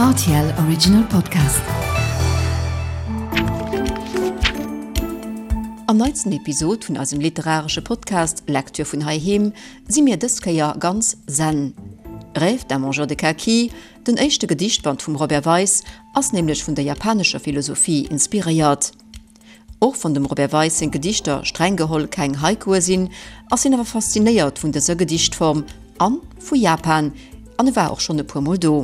Rtl Original Podcast. Am neitsten Episod vun eisem literaresche Podcast Lecture vun heiheem si mir dës Kéier ganz zen. Rêve d'un mangeur de kaki, den éischte Gedichtband vum Robert Weis, ass nämlech vun der japanescher Philosophie inspiréiert. Och wann dem Robert Weis seng Gedichter streng geholl keng Haikue sinn, ass hien awer faszinéiert vun dëser Gedichtform an vu Japan, an e war och schonn e puer Mol do.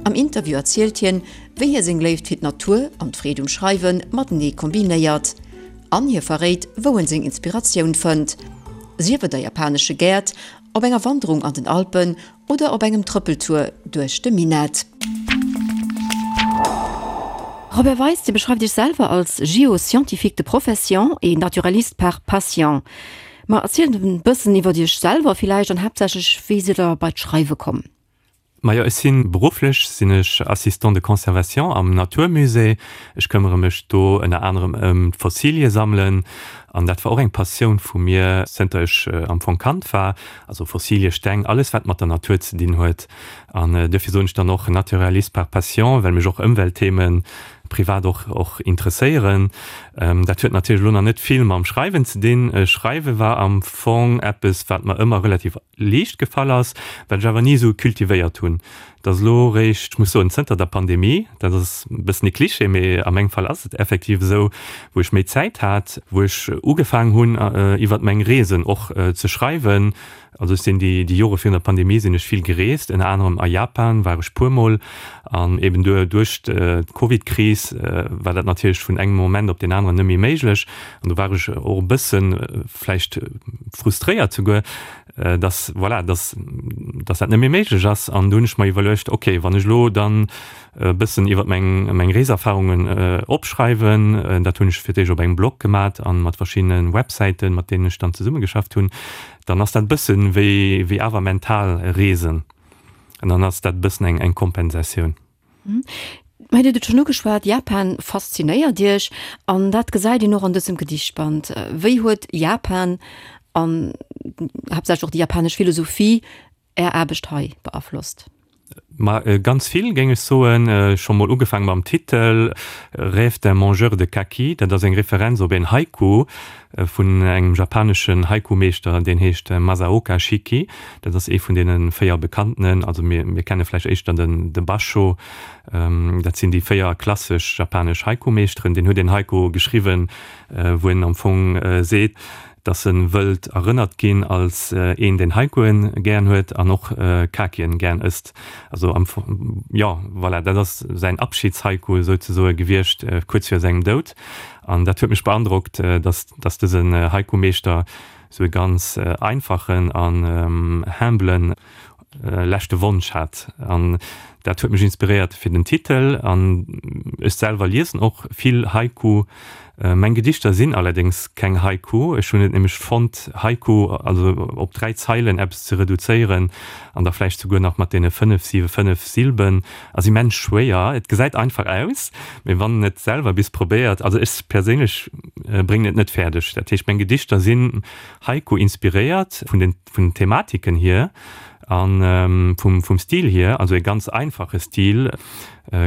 Am Interview erzielt hien, wéi hie seng Léift fir d'Natur an d'Freed um Schreiwe matenee kombinéiert. An hie verréit, wou en seng Inspiratioun fënnt, sief et a japanesche Gäert, op enger Wanderung an den Alpen Oder op engem Trëppeltour duerch de Minett. Robert Weis, Dir beschreift Iech selwer als Géoscientifique de profession et naturaliste par passion. Ma erzielt e bëssen iwwer Iech selwer villäicht an haaptsächlech, wéi sidd Der bei d'Schreiwe komm? Majo, ech si berufflech sinn ech Assistant de conservation am Naturmusée. Ech këmmere mech do ënner anerem ëm d'Fossilie sammelen an dat war och eng Passioun vu mir zënter ech am Fong Kand war. Also Fossilie, Steng, alles wat mat der Natur ze dinn huet. An duerfir soen ech dann och Naturaliste par passion, well mech och Ëmweltthemen privat och och interesséieren. Dat huet natierlech elo nach net vill mam Schreiwen ze dinn. Schreiwe war am Fong eppes, wat mer ëmmer relativ liicht gefall ass, wat ech awer ni esou cultivéiert hunn. Et ass elo eréischt, ech muss soen, zënter der Pandemie, dat ass e bëssen e Cliché, mee a mengem Fall ass et effektiv esou, wou ech méi Zäit hat, wou ech ugefaangen hunn, iwwert meng Reesen och ze schreiwen. Also ech sinn déi Jore virun der Pandemie sinn ech vill gereest, ënner anerem a Japan war ech puermol. An eben duerch d'Covidkris war dat natierlech vun engem Moment op deen aneren net méi méiglech. An do war ech och e bësse vläicht frustréiert souguer, dass, voilà, dass, dass dat net méi méiglech ass. An do hunn ech mer iwwerluecht, okay, wann ech elo dann e bëssen iwwer meng, meng Reeserfarungen opschreiwen, dat hunn ech fir d'éischt op engem Blog gemat an mat verschiddene Websäiten, mat deenen ech dann zesummegeschafft hunn, dann ass dat e bëssen wéi, wéi awer mental Reesen. An dann ass dat e bëssen eng, eng Kompensatioun. Mä Dir hutt et schonn ugeschwat, Japan faszinéiert Iech an dat gesäit een och an dësem Gedichtband. Wéi huet Japan an haaptsächlech och déi japanesch Philosophie Är Aarbecht hei beaflosst? Ma ganz vill, géing ech soen. Scho mol ugefaang mam Titel, Rêve d'un mangeur de kaki. Dat ass eng Referenz op een Haiku vun engem japaneschen Haiku-Meeschter, deen heescht Masaoka Shiki. Dat ass ee vun deene 4 bekanntenen. Also mir mir kenne vläicht éischter den de Basho. Dat sinn déi 4 klassesch japanesch Haiku-Meeschteren. Deen huet een Haiku geschriwwen, wou en am Fong seet, dass en wëllt erënnert ginn als een, deen Haikuen gären huet an och Kakien gären ësst. Also am Fong, jo, voilà, dat ass säin Abschiedshaiku souzesoe gewiescht, kuerz vir sengem Doud. An dat huet mech beandrockt, dass dass dësen Haiku-Meeschter sou e ganz einfachen an humblen leschte Wonsch hat. An dat huet mech inspiréiert fir den Titel. An ech selwer liesen och vill Haiku. Meng Gedichter sinn allerdéngs keng Haiku. Ech hunn et nämlech fonnt, Haiku, also op 3 Zeilen eppes ze reduzéieren an da vläicht souguer nach mat deene 5, 7, 5 Silben, ass immens schwéier. Et gesäit einfach aus, mee wann en et selwer bis probéiert, also ech perséinlech bréngen et net fäerdeg. Dat heescht, meng Gedichter sinn Haiku-inspiréiert vun den vun den Thematiken hier a vum vum Stil hier, also e ganz einfache Stil,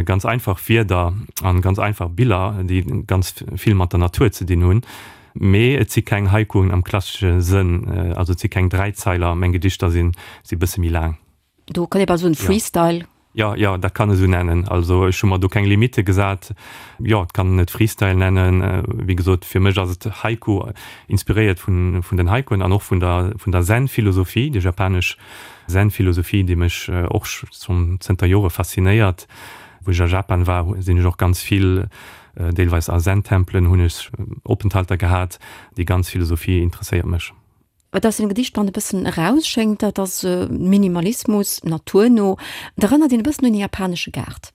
ganz einfach Wierder an ganz einfach Biller, déi ganz vill mat der Natur ze dinn hunn. Mee et si keng Haikuen am klassesche Sënn, also et si keng Dräizeiler, meng Gedichter sinn si bësse méi laang. Do kann ee bal soen Freestyle. Jo, jo, dat kann e sou nennen. Also ech hu mer do keng Limitte gesat. Jo, et kann en et Freestyle nennen. Wéi gesot, fir mech ass et Haiku, inspiréiert vun, vun den Haikuen an och vun der, vun der Zen-Philosophie, déi japanesch Zen-Philosophie, déi mech och schonn zënter Jore faszinéiert. Wou ech a Japan war, sinn ech och ganz vill, deelweis a Zen-Tempelen hunn ech Openthalter gehat. Déi ganz Philosophie interesséiert mech. Wat aus dem Gedichtband e bëssen erausschéngt, dat ass Minimalismus, naturno. Et erënnert een e bëssen un e japanesche Gaart.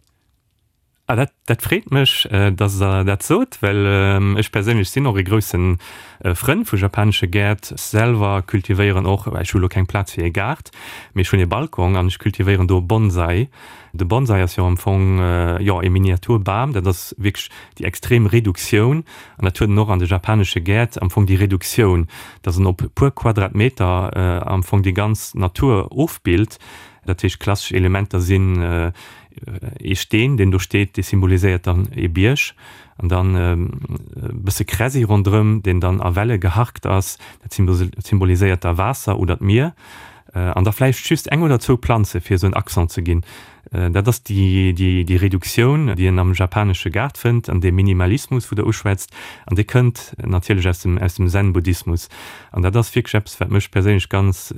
Ah, dat, dat freet mech, dass Der dat sot, well ech perséinlech sinn och e grousse Frënn vu japanesche Gäert. Selwer cultivéieren och, ech hu lo keng Plaz fir e Gaart, mee ech hunn e Balcon an ech cultivéieren do Bonsai. De Bonsai ass jo am Fong, jo, e Miniaturbam. Dat ass wierklech déi extrem Reduktioun An dat huet en och an de japanesche Gäert am Fong déi Reduktioun, datt en op e puer Quadratmeter am Fong déi ganz Natur ofbillt. Dat heescht, klassesch Elementer sinn. Ee Steen, deen do steet, dee symboliséiert dann ee Bierg. An dann e bësse Kräsi ronderëm, deen dann a Welle geharkt ass, dat symboliséiert da Waasser oder d'Mier. An da vläicht just eng oder zwou Planze fir esou en Accent ze ginn. Dat ass déi Reduktioun, déi een am japanesche Gaart fënnt, an dee Minimalismus, wou Der uschwätzt, an dee kënnt natierlech aus dem, aus dem Zen-Buddhismus. An dat ass wierklech eppes, wat mech perséinlech ganz,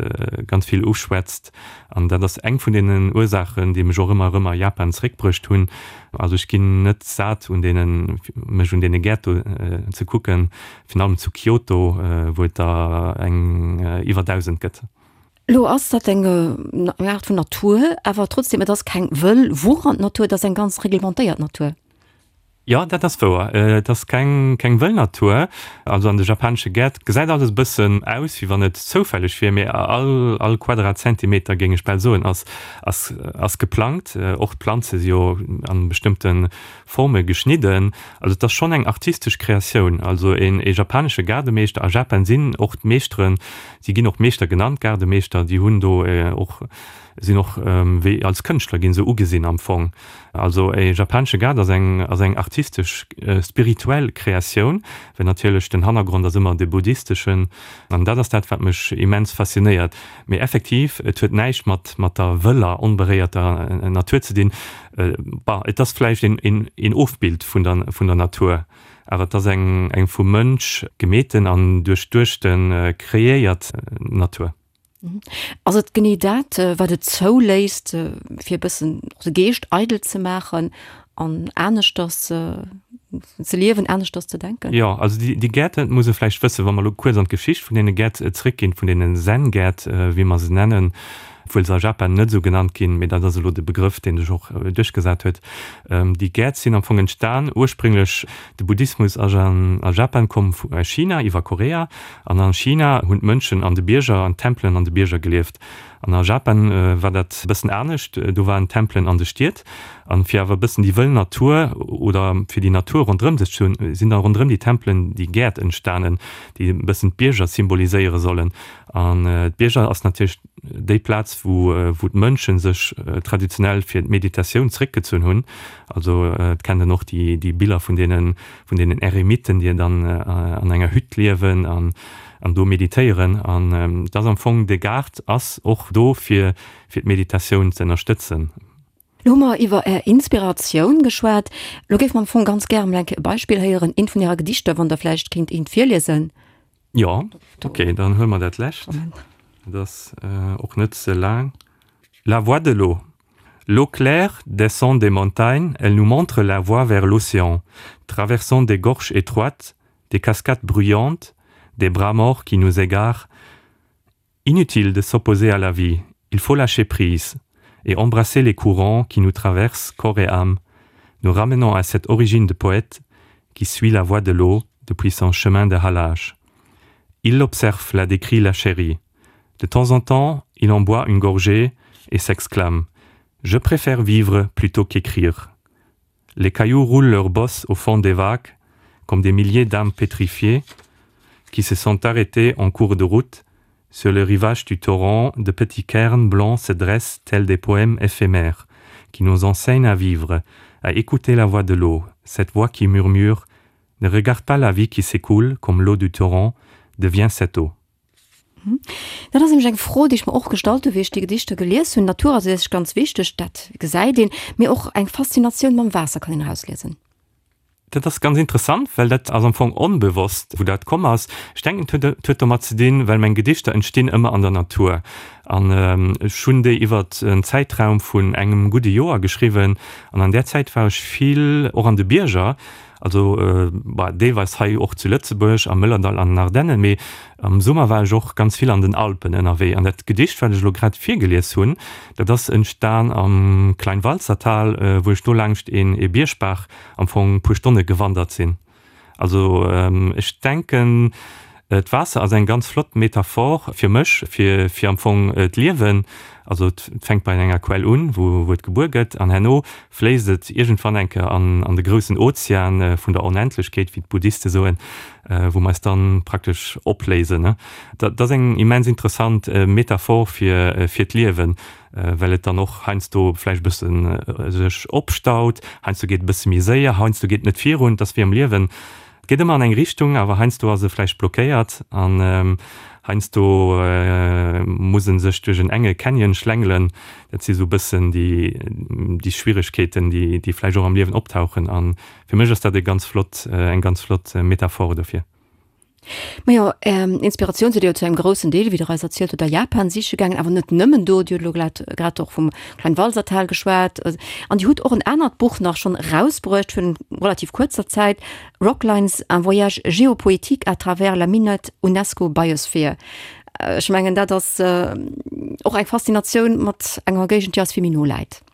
ganz vill uschwätzt. An dat ass eng vun deenen Ursaachen, déi mech och ëmmer erëm a Japan zeréckbruecht hunn. Also ech ginn net sat, un deenen, mech un deene Gäert do ze kucken, virun allem zu Kyoto, wou et der eng iwwer 1.000 gëtt. Lo ass dat eng Aart vun Natur, awer trotzdem, et ass keng wëll wuchernd Natur, et ass eng ganz reglementéiert Natur. Jo, dat ass wouer. Et ass keng keng wëll Natur. Also an de japanesche Gäert gesäit alles e bëssen aus, wéi wann et zoufälleg wier, mee all all Quadratzentimeter, géing ech bal soen, ass ass ass geplangt. Och d'Planze si jo an bestëmmte Forme geschnidden. Also et ass schonn eng artistesch Kreatioun. Also een ee japanesche Gaardemeeschter, a Japan sinn och d'Meeschteren, si ginn och Meeschter genannt, Gaardemeeschter, déi hunn do och sinn och wéi als Kënschtler ginn se ugesinn am Fong. Also e japanesche Gaart ass eng ass eng artistesch spirituell Kreatioun, well natierlech den Hannergrond ass ëmmer de buddhisteschen an dat ass dat wat mech immens faszinéiert. Mee effektiv, et huet näischt mat mat der wëller onberéierter Natur ze dinn. Bah, et ass vläicht een een een Ofbild vun der vun der Natur, awer et ass eng eng vum Mënsch gemeeten an duerchduechte kreéiert Natur. Ass et genee dat, wat et zouléisst, fir e bëssen och de Geescht eidel ze maachen an aneschters ze liewen, aneschters ze denken? Jo, also déi Gäert, dat muss ee vläicht wëssen, wa mer elo kuerz an d'Geschicht vun deene Gäert zréckginn, vun deene Zen-Gäert, wéi mer se nennen, obwuel se a Japan net esou genannt ginn, mee dat ass elo de Begrëff, dee sech och duerchgesat huet. Déi Gäert sinn am Fong entstan, ursprünglech, de Buddhismus ass a Japan komm vu China iwwer Korea, An a China hunn d'Mënschen an de Bierger, an Tempelen an de Bierger gelieft. An a Japan war dat e bëssen anescht, do waren d'Tempelen an de Stied. An fir awer e bëssen déi wëll Natur oder fir déi Natur ronderëm sech ze hunn, sinn da ronderëm déi Tempelen déi Gäert entstanen, déi e bëssen d'Bierger symboliséiere sollen. An d'Bierger ass natierlech déi Plaz, wou wou d'Mënsche sech traditionell fir d'Meditatioun zeréckgezunn hunn. Also et kennt een och déi déi Biller vun deenen vun deenen Eremiten, déi dann an enger Hütt liewen an an do meditéieren. An et ass am Fong, de Gaart ass och do fir fir d'Meditatioun ze ënnerstëtzen. Lo hu mer iwwer Är Inspiratioun geschwat. Lo géife mer am Fong ganz gären emol eng Kéier e Beispill héieren, eent vun Ärer Gedichter, wann Der vläicht kéint eent virliesen. Jo, ok, dann huele mer dat lescht. Dat ass och net ze laang. La voix de l'eau. L'eau claire descend des montagnes, elle nous montre la voie vers l'océan, traversant des gorges étroites, des cascades bruyantes, des bras morts qui nous égarent. Inutile de s'opposer à la vie, il faut lâcher prise et embrasser les courants qui nous traversent corps et âme, nous ramenant à cette origine de poète qui suit la voie de l'eau depuis son chemin de halage. Il l'observe, la décrit, la chérie. De temps en temps, il en boit une gorgée et s'exclame: Je préfère vivre plutôt qu'écrire. Les cailloux roulent leurs bosses au fond des vagues, comme des milliers d'âmes pétrifiées qui se sont arrêtées en cours de route. Sur le rivage du torrent, de petits cairns blancs se dressent tels des poèmes éphémères qui nous enseignent à vivre, à écouter la voix de l'eau, cette voix qui murmure: Ne regarde pas la vie qui s'écoule comme l'eau du torrent, deviens cette eau. Dat ass nämlech eng Fro, déi ech mer och gestallt hu wéi ech déi Gedichter gelies hunn. D'Natur ass u sech ganz wichteg, dat gesäit een, mee och eng Faszinatioun mam Waasser kann een erausliesen. Dat ass ganz interessant, well dat ass am Fong onbewosst, wou dat komm ass. Ech denken, et huet et huet domat ze dinn, well meng Gedichter entstinn ëmmer an der Natur. An ech hunn déi iwwert en Zäitraum vun engem gudde Joer geschriwwen. An an där Zäit war ech vill och an de Bierger. Also bah, deelweis hei och zu Lëtzebuerg, am Mëllerdall an den Ardennen, mee am Summer war ech och ganz vill an den Alpen ënnerwee. An dat Gedicht, wat ech elo grad virgelies hunn, dat ass entstan am Kleinwalsertal, wou ech do laangscht een ee Biergbaach am Fong puer Stonne gewandert sinn. Also ech denken, D'Waasser ass eng ganz flott Metaphor fir mech, fir fir am Fong d'Liewen. Also et fänkt bei enger Quell un, wou wou et gebuer gëtt, an herno fléisst et iergendwann eng Kéier an an de groussen Ozean vun der Onendlechkeet, wéi d'Buddhiste soen, wou mer eis dann praktesch opléisen. Dat ass eng immens interessant Metaphor fir fir d'Liewen. well et dann och heiansdo vläicht e bësse sech opstaut, heiansdo geet et e bësse méi séier, heiansdo geet et net virun. Et ass wéi am Liewen, et geet ëmmer an eng Richtung, awer heiansdo ass e vläicht blockéiert an heiansdo muss e sech duerch en enge Canyon schlängelen. Dat si sou e bëssen déi, déi Schwieregkeeten, déi, déi vläicht och am Liewen optauchen. A fir mech ass dat e ganz flott, eng ganz flott Metaphore dofir. Majo, Är Inspiratioun sidd Dir jo zu engem groussen Deel, wéi Der eis erzielt hutt, a Japan siche gaangen, awer net nëmmen do. Dir hutt elo glat grad och vum Kleinwalsertal geschwat an Dir hutt och en anert Buch nach schonn erausbruecht virun relativ kuerzer Zäit, Rocklines, un voyage géopoétique à travers la Minett UNESCO Biosphere. Ech mengen, dat ass och eng Faszinatioun mat enger Géigend, déi eis vill méi no läit.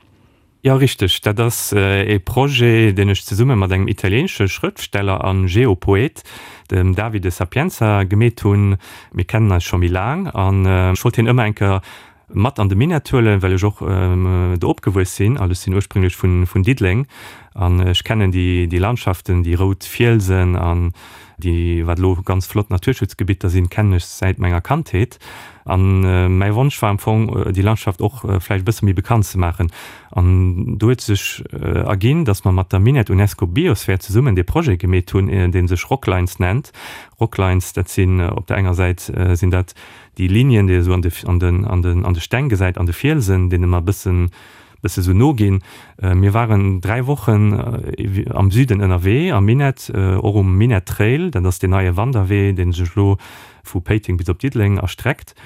Jo, richteg. Dat ass ee Projet, deen ech zesumme mat engem italieenesche Schrëftsteller a Geopoet, dem Davide Sapienza, gemeet hunn. Mir kennen eis scho méi laang an ech wollt hien ëmmer eng Kéier mat an de Minett huelen, well ech och do opgewuess sinn. Also ech sinn ursprünglech vun Diddeleng an ech kennen déi Landschaften, déi rout Fielsen an déi, wat elo ganz flott Naturschutzgebitter sinn, kennen ech säit menger Kandheet. An mäi Wonsch war am Fong, déi Landschaft och vläicht e bësse méi bekannt ze maachen. An do huet sech erginn, datt mer mat der Minett UNESCO Biosphere zesummen dee Projet gemeet hunn, dee sech Rocklines nennt. Rocklines, dat sinn op der enger Säit sinn dat déi Linien, déi ee sou an de, an den, an den, an de Steng gesäit, an de Fielsen, deene mer e bëssen, bësse sou no ginn. Mir waren 3 Wochen am Süden ënnerwee, am Minett, och um Minett Trail, dat ass deen neie Wanderwee, dee sech elo vu Péiteng bis op Diddeleng erstreckt.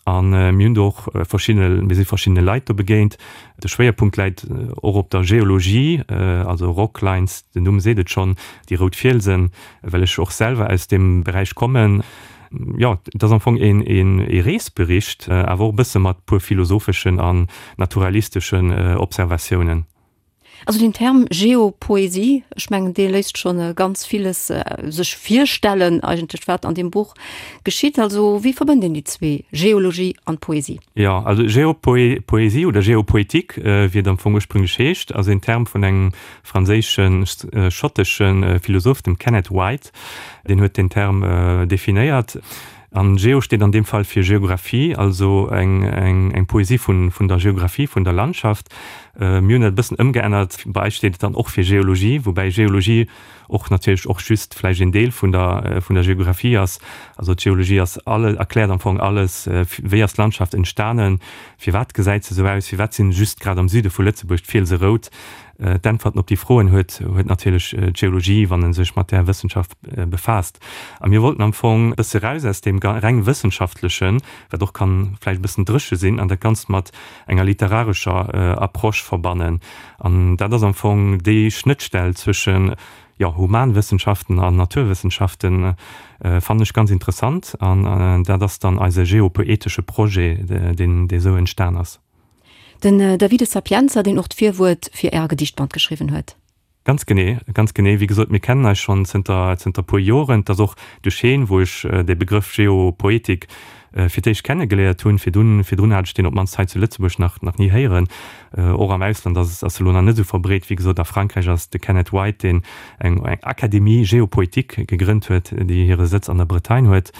A mir hunn do och verschidde, mir si verschiddene Leit do begéint. De Schwéierpunkt läit och op der Geologie, also Rocklines, den Numm seet et schonn, déi rout Fielsen, well ech och selwer aus deem Beräich kommen. Jo, et ass am Fong een Reesbericht, awer och e bësse mat puer philosopheschen an naturalisteschen Observatiounen. Also den Term Geopoesie, ech mengen dee léisst schonn ganz villes sech virstellen eigentlech wat an deem Buch geschitt. Also wéi verbënnt een déi zwee, Geologie an Poesie? Jo, also Geopoesie oder Geopoetik, wéi et am Fong ursprünglech heescht, ass een Term vun engem franséischen, schottesche Philosoph, dem Kenneth White. Deen huet deen Term definéiert. An Geo steet an deem Fall fir Geographie, also eng Poesie vun der Geographie, vun der Landschaft. Mir hunn dat e bëssen ëmgeännert, bei eis steet et dann och fir Geologie, woubäi Geologie och natierlech och just vläicht een Deel vun der vun der Geographie ass. Also d'Geologie ass alle, erkläert am Fong alles, wéi ass d'Landschaft entstanen, firwat gesäit se esou aus, firwat sinn just grad am Süde vu Lëtzebuerg d'Fielse rout. D'Äntwerten op déi Froen huet huet natierlech d'Geologie, wann e sech mat där Wëssenschaft befaasst. A mir wollten am Fong e bësse raus aus deem reng Wëssenschaftlechen, wat och kann vläicht e bëssen dréche sinn, an dat Ganzt mat enger literarescher Approche verbannen. An dat ass am Fong déi Schnëttstell zwëschen, jo, Humanwëssenschaften an Naturwëssenschaften, fannen ech ganz interessant. An dat ass dann eise geopoetesche Projet, deen dee sou entstan ass. Den Davide Sapienza, deen och d'Virwuert fir Äre Gedichtband geschriwwen huet. Ganz genee, ganz genee. Wéi gesot, mir kennen eis schonn zënter, zënter puer Joren. Et ass och duerch heen, wou ech dee Begrëff Geopoetik fir d'éischt kenne geléiert hunn. Virdun, virdrun hat ech deen op d'mannst hei zu Lëtzebuerg nach, nach ni héieren. Och am Ausland ass, ass e lo nach net esou verbreet. Wéi gesot, a Frankräich ass de Kenneth White, deen eng, eng Académie Géopoétique gegrënnt huet, déi hire Sëtz an der Bretagne huet.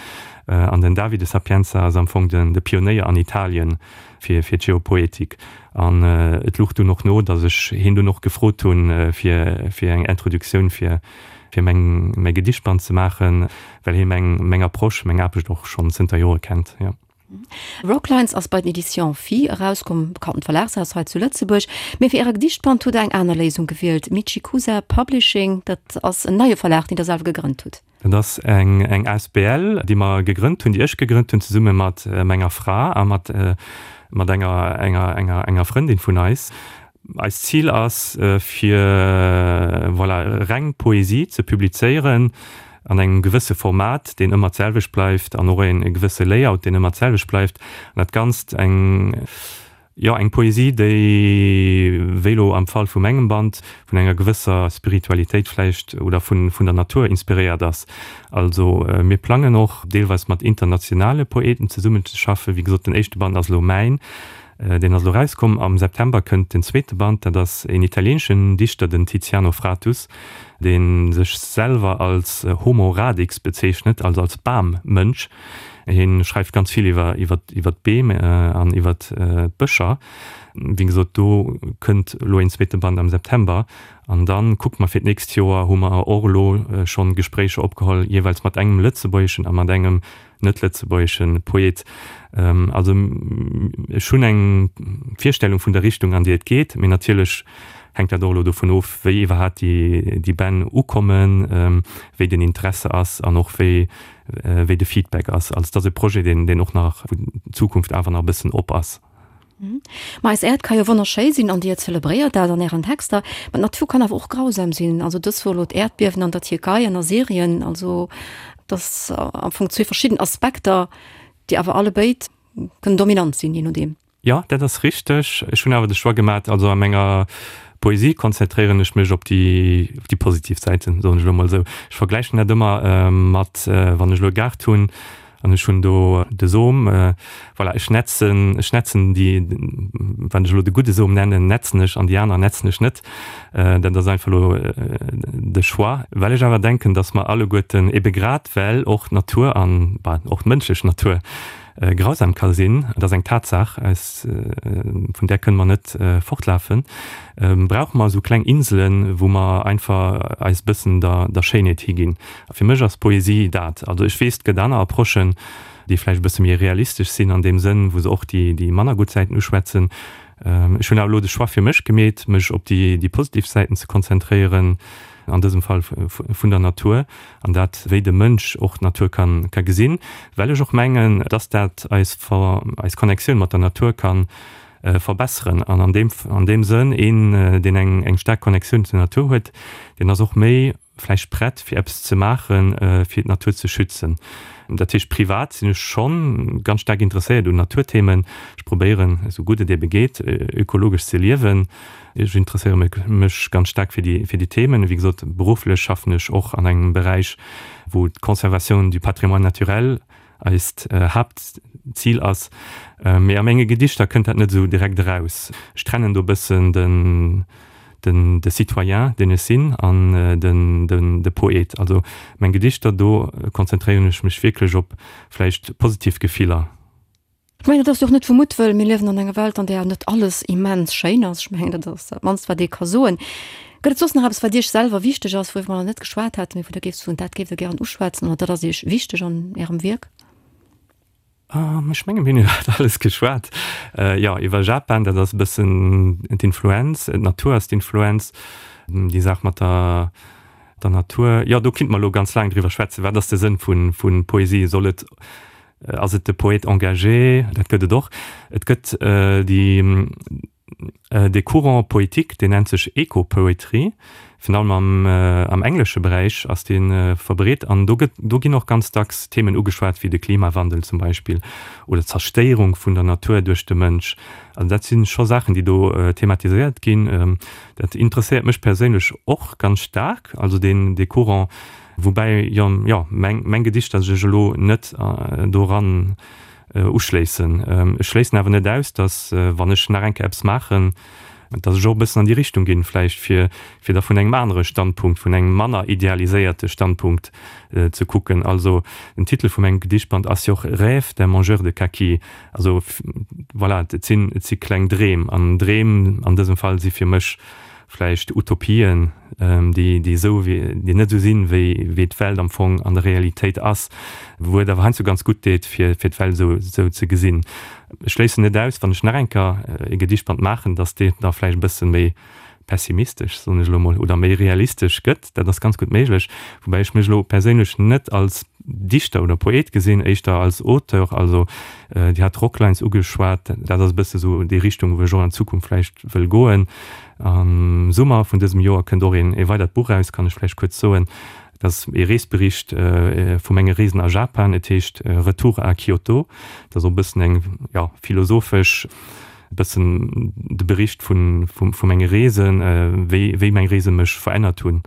An den Davide Sapienza ass am Fong den, de Pionéier an Italien fir fir d'Geopoetik. An et luch dunn och no, datt ech hien dunn och gefrot hunn, fir fir eng Introduktioun fir fir meng mäi Gedichtband ze maachen, well hie meng meng Approche, meng Aarbecht och schonn zënter Jore kennt, jo. Rocklines ass bei den Editions Phi erauskomm, bekanntent Verlagshaus hei zu Lëtzebuerg. Mee fir Äre Gedichtband hutt Der eng aner Léisung gewielt, Michikusa Publishing, dat ass en neie Verlag, deen Der selwer gegrënnt hutt. Dat ass eng eng asbl, déi mer gegrënnt hunn, déi ech gegrënnt hunn zesumme mat menger Fra a mat mat enger enger enger enger Frëndin vun eis. Eist Zil ass fir voilà reng Poesie ze publizéieren an engem gewësse Format, deen ëmmer d'selwecht bleift an och e gewësse Layout, deen ëmmer d'selwecht bleift an dat Ganzt eng Jo, eng Poesie, déi, wéi elo am Fall vu mengem Band, vun enger gewësser Spiritualitéit vläicht oder vun vun der Natur inspiréiert ass. Also mir plangen och deelweis mat internationale Poeten zesummenzeschaffen. Wéi gesot, den éischte Band ass elo mäin, deen ass elo erauskomm. Am September kënnt den zweete Band, dat ass een italieeneschen Dichter, den Tiziano Fratus, dee sech selwer als Homo radix bezeechnet, also als Bam-Mënsch. Hien schreift ganz vill iwwer iwwer iwwer d'Beem an iwwer d'Bëscher. Wéi gesot, do kënnt elo een zweete Band am September. An dann kucke mer fir d'nächst Joer, hu mer och elo schonn Gespréicher opgeholl, jeeweils mat engem lëtzebuergeschen a mat engem net-lëtzebuergesche Poet. Also ech hunn eng Virstellung vun der Richtung, an déi et geet, mee natierlech hänkt dat och elo dovun of, wéi iwwerhaapt déi Bänn ukommen, wéi den Interesse ass an och wéi wéi de Feedback ass. Also et ass e Projet, deen och nach, wou d'Zukunft awer nach e bëssen op ass. Ma eis Äerd ka jo wonnerschéi sinn an Dir zelebréiert dat an Ären Texter. Ma d'Natur kann awer och grausam sinn. Also dës Woch elo d'Äerdbiewen an der Tierkei an a Syrien. Also et ass am Fong zwee verschidden Aspekter, déi awer allebéid kënnen dominant sinn, jee nodeem. Jo, dat ass richteg. Ech hunn awer de Choix gemat, also a menger Poesie konzentréieren ech mech op déi, op déi positiv Säiten, soen ech elo mol esou. Ech vergläichen dat ëmmer mat, wann ech elo e Gaart hunn, An ech hunn do de Som, voilà, ech netzen, ech netzen déi, wann ech elo de gudde Som nennen, netzen ech an déi aner netzen ech net. Dat ass einfach elo de Choix. Well ech awer denken, datt mer alleguerten, ebe grad well och d'Natur an, bah, och d'mënschlech Natur grausam ka sinn, dat ass eng Tatsaach, eis, vun där kënne mer net fortlafen, brauche mer esou kleng Inselen, wou mer einfach eis e bëssen der, der Schéinheet higinn. A fir mech ass Poesie dat. Also ech weess, et gëtt aner Approchen, déi vläicht e bësse méi realistesch sinn an deem Sënn, wou se och déi, déi manner gutt Säiten uschwätzen. Ech hunn awer elo de Choix fir mech gemeet, mech op déi, déi positiv Säiten ze konzentréieren, an dësem Fall vun der Natur, an dat, wéi de Mënsch och d'Natur ka, ka gesinn, well ech och mengen, dass dat eis, eis Connectioun mat der Natur ka verbesseren. An an deem, an deem Sënn, een, deen eng, eng staark Connectioun zur Natur huet, deen ass och méi vläicht prett fir eppes ze maachen, fir d'Natur ze schützen. Dat heescht, privat sinn ech schonn ganz staark interesséiert un Naturthemen. Ech probéieren, esou gutt et ebe geet, ökologesch ze liewen. Ech interesséiere mech ganz staark fir déi, fir déi Themen. Wéi gesot, berufflech schaffen ech och an engem Beräich, wou d'Conservation du patrimoine naturel eist Haaptzil ass. Mee a menge Gedichter kënnt dat net esou direkt eraus. Ech trennen do e bëssen den, den, de Citoyen, deen ech sinn, an den, den, de Poet. Also meng Gedichter, do konzentréieren ech mech wierklech op vläicht positiv Gefiller. Ech mengen, dat ass jo och net vu Muttwëll. Mir liewen an enger Welt, an där net alles immens schéin ass. Ech mengen, dat ass dat mannst, wat ee ka soen. Gëtt et soss nach eppes, wat Iech selwer wichteg ass, wouriwwer mer nach net geschwat haten, mee wou Der géift soen, dat géift Der gären uschwätzen oder dat ass Iech wichteg an Ärem Wierk? Ech menge mir hunn iwwer alles geschwat. Jo, iwwer Japan, dat ass e bëssen d'Influenz, d'Natur ass d'Influenz, déi Saach mat der der Natur. Jo, do kinnt mer elo ganz laang driwwer schwätzen. Wat ass de Sënn vu Poesie? Soll et Ass et de Poète engagé? Dat gëtt et och. Et gëtt déi, dee Courant poétique, deen nennt sech Eco-Poetry, virun allem am, am englesche Beräich ass dee verbreet. An do gëtt, do ginn och ganz dacks Themen ugeschwat wéi de Klimawandel zum Beispill oder d'Zerstéierung vun der Natur duerch de Mënsch. Also dat si scho Saachen, déi do thematiséiert ginn. Dat interesséiert mech perséinlech och ganz staark, also deen, dee Courant. Woubäi jo, jo, meng, meng Gedichter sech elo net doran uschléissen. Ech schléissen awer net aus, datt, wann ech nach eng Kéier eppes maachen, datt ech och e bëssen an déi Richtung ginn, vläicht fir, fir da vun engem anere Standpunkt, vun engem manner idealiséierte Standpunkt ze kucken. Also den Titel vu mengem Gedichtband ass jo och Rêve d'un mangeur de kaki. Also voilà, et sinn, et si kleng Dreem. An Dreem an dësem Fall si fir mech vläicht Utopien, déi déi esou wéi déi net esou sinn, wéi wéi d'Welt am Fong an der Realitéit ass, wou et awer heiansdo ganz gutt deet, fir fir d'Welt esou esou ze gesinn. Ech schléissen net aus, wann ech nach eng Kéier e Gedichtband maachen, datt deen da vläicht e bësse méi pessimistesch, soen ech elo mol, oder méi realistesch gëtt. Dat ass ganz gutt méiglech, woubäi ech mech elo perséinlech net als Dichter oder Poet gesinn, éischter als Auteur. Also Dir hat d'Rocklines ugeschwat, dat ass e bësse sou déi Richtung, wou ech och an Zukunft vläicht wëll goen. Am Summer vun dësem Joer kënnt och een ee weidert Buch eraus, kann ech vläicht kuerz soen. Dat ass ee Reesbericht vu menge Reesen a Japan. Et heescht Retour à Kyoto. Dat ass och e bëssen eng, jo, philosophesch, e bëssen de Bericht vu vu menge Reesen, wéi wéi meng Reese mech verännert hunn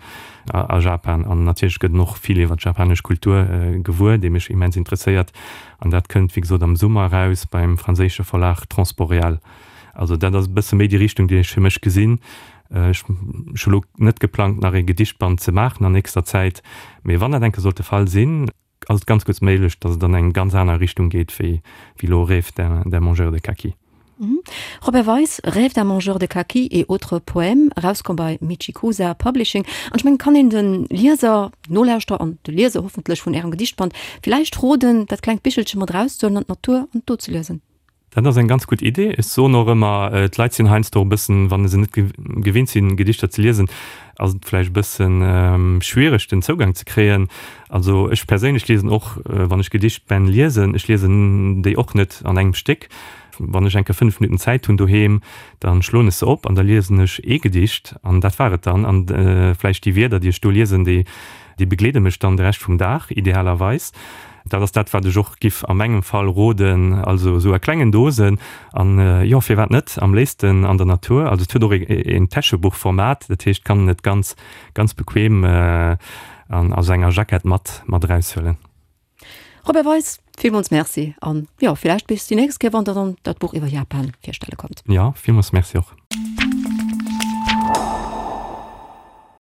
a Japan. An natierlech gëtt en och vill iwwer d'japanesch Kultur gewuer, déi mech immens interesséiert. An dat kënnt, wéi gesot, am Summer eraus beim franséische Verlag Transboréal. Also dat ass e bësse méi déi Richtung, déi ech fir mech gesinn. Ech hu lo net geplangt, nach ee Gedichtband ze maachen an nächster Zäit, mee wann dat eng Kéier sollt de Fall sinn, ass et ganz gutt méiglech, datt et an eng ganz aner Richtung geet wéi elo Rêve d'un mangeur de kaki. Robert Weis, Rêve d'un mangeur de kaki et autres poèmes, erauskomm bei Michikusa Publishing. An ech mengen, kann een de Lieser, Nolauschterer an de Lieser hoffentlech vun Ärem Gedichtband villäicht roden, dat klengt Bichelche mat erauszehuelen an d'Natur an do ze liesen. Dat ass eng ganz gutt Idee. Ech soen och ëmmer, d'Leit sinn heiansdo e bëssen, wa se net gewinnt sinn, Gedichter ze liesen, ass et vläicht e bëssen schwiereg, den Zougang ze kréien. Also ech perséinlech liesen och, wann ech Gedichtbänn liesen, ech liesen déi och net an engem Stéck. Wann ech eng Kéier 5 Minutten Zäit hunn doheem, da schloen ech se op an da liesen ech ee Gedicht an dat war et dann. An vläicht déi Wierder, déi ech do liesen, déi Déi begleede mech dann de Rescht vum Dag, idealerweis. Dat ass dat, wat ech och giff a mengem Fall roden, also esou a klengen Dosen an, jo, firwat net, am léifsten an der Natur. Also et huet och een Täschebuchformat, dat heescht, kann en et ganz, ganz bequem an a senger Jackett mat, mat eraushuelen. Robert Weis, villmools Merci an, jo, villäicht bis déi nächst Kéier, wann Der dann dat Buch iwwer Japan virstelle kommt. Jo, villmools Merci och.